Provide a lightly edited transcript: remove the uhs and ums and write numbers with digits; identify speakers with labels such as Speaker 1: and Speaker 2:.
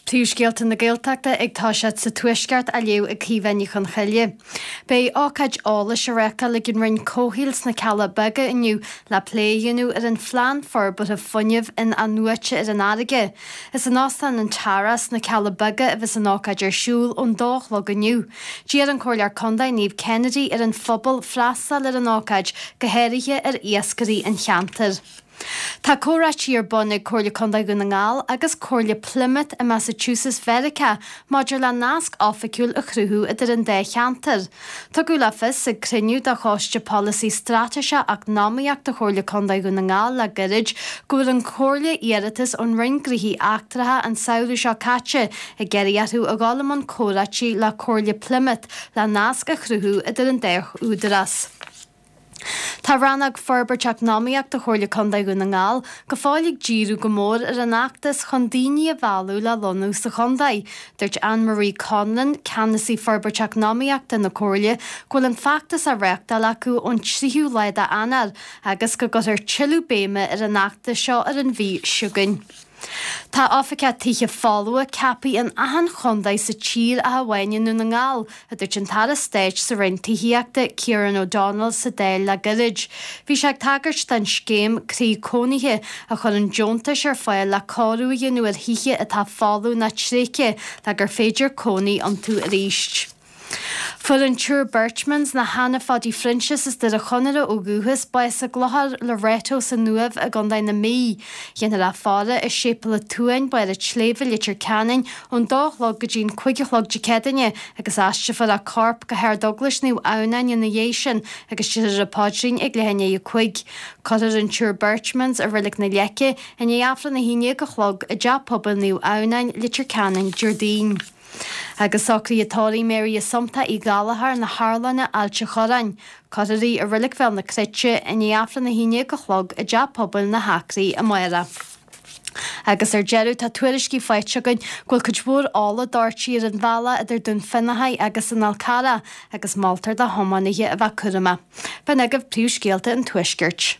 Speaker 1: Príomhscéalta na Gaeltachta ag toiseacht sa Tuaisceart á léamh ag Caoimhe Ní Chonchoille. Beidh ócáid eolais á reáchtáil ag an Roinn Comhshaoil sna Cealla Beaga inniu le plé a dhéanamh ar an phlean forbartha fuinnimh in-athnuaite ar an fharraige. Is in Óstán an Tara sna Cealla Beaga a bheas an ócáid ar siúl ón dó a chlog inniu. D'iarr an Comhairleoir Contae Niamh Kennedy ar an phobal freastal ar an ócáid, go háirithe ar iascairí an cheantair. Tá comhráití ar bun ag Comhairle Contae Dhún na nGall agus Comhairle Plymouth i Massachusetts Mheiriceá maidir le nasc oifigiúil a chruthú idir an dá cheantar. Tugadh le fios ag cruinniú de Choiste Polasaí Straitéiseach Eacnamaíochta Chomhairle Contae Dhún na nGall le gairid go bhfuair an Chomhairle iarratas ón Roinn Gnóthaí Eachtracha an samhradh seo caite ag iarraidh orthu a dhul i mbun comhráití le Comhairle Plymouth le nasc a chruthú idir an dá údarás. Tá Rannóg Forbairt Eacnamaíochta Chomhairle Contae Dhún na nGall go fóill ag díriú go mór ar an fheachtas chun daoine a mhealladh le lonnú sa chontae. Dúirt Anne Marie Conlon, Ceannasaí Forbairt Eacnamaíochta na Comhairle, go bhfuil an feachtas á reáchtáil acu ón 3ú lá d'Eanáir agus go gcuirfear tuilleadh béime ar an fheachtas seo ar an mhí seo chugainn. Tá oifigeach tithe folmha ceaptha in achan chontae sa tír ach amháin i nDún na nGall, a dúirt an tAire Stáit sa Roinn Tithíochta, Kieran O'Donnell sa Dáil le gairid. Bhí sé ag tagairt don scéim Croí Cónaithe a chuireann deontais ar fáil le cóiriú a dhéanamh ar thithe atá folamh nó tréigthe le gur féidir cónaí iontu arís. Fuair an tSiúr Berchmans, nó Hannah Phaidí Phroinsias as Doire Chonaire ó dhúchas, bás i gClochar Loreto san Uaimh i gContae na Mí. Dhéanfar a faire i Séipéal an tSuain, Barr an tSléibhe, Leitir Ceanainn, ón dó a chlog go dtí an cuig a chlog Dé Céadaoine agus aistrefar a corp go hArd-Eaglais Naomh Adhamhnáin ina dhiaidh sin agus déarfar an paidrín ag leath i ndiaidh a cuig. Cuirfear an tSiúr Berchmans i Reilig na Leice i ndiaidh Aifreann 11 a chlog i dTeach Pobail Naomh Adhamhnáin, Leitir Ceanainn, Déardaoin. Agus socruithe tórraimh Mary Assumpta Uí Ghallchóir na hArlainne, Ailt a' Chorráin. Cuirfear í i Reilig Bhéal na Cruite i ndiaidh Aifreann 11 a chlog i dTeach Pobail na hAcraí amárach. Agus ar deireadh, tá tuairiscí faighte againn go bhfuil cuid mhór ola doirte ar an bhealach idir Dún Fionnachaidh agus an Fhál Carrach agus moltar do thiománaithe a bheith cúramach. B'in agaibh príomhscéalta an Tuaiscirt.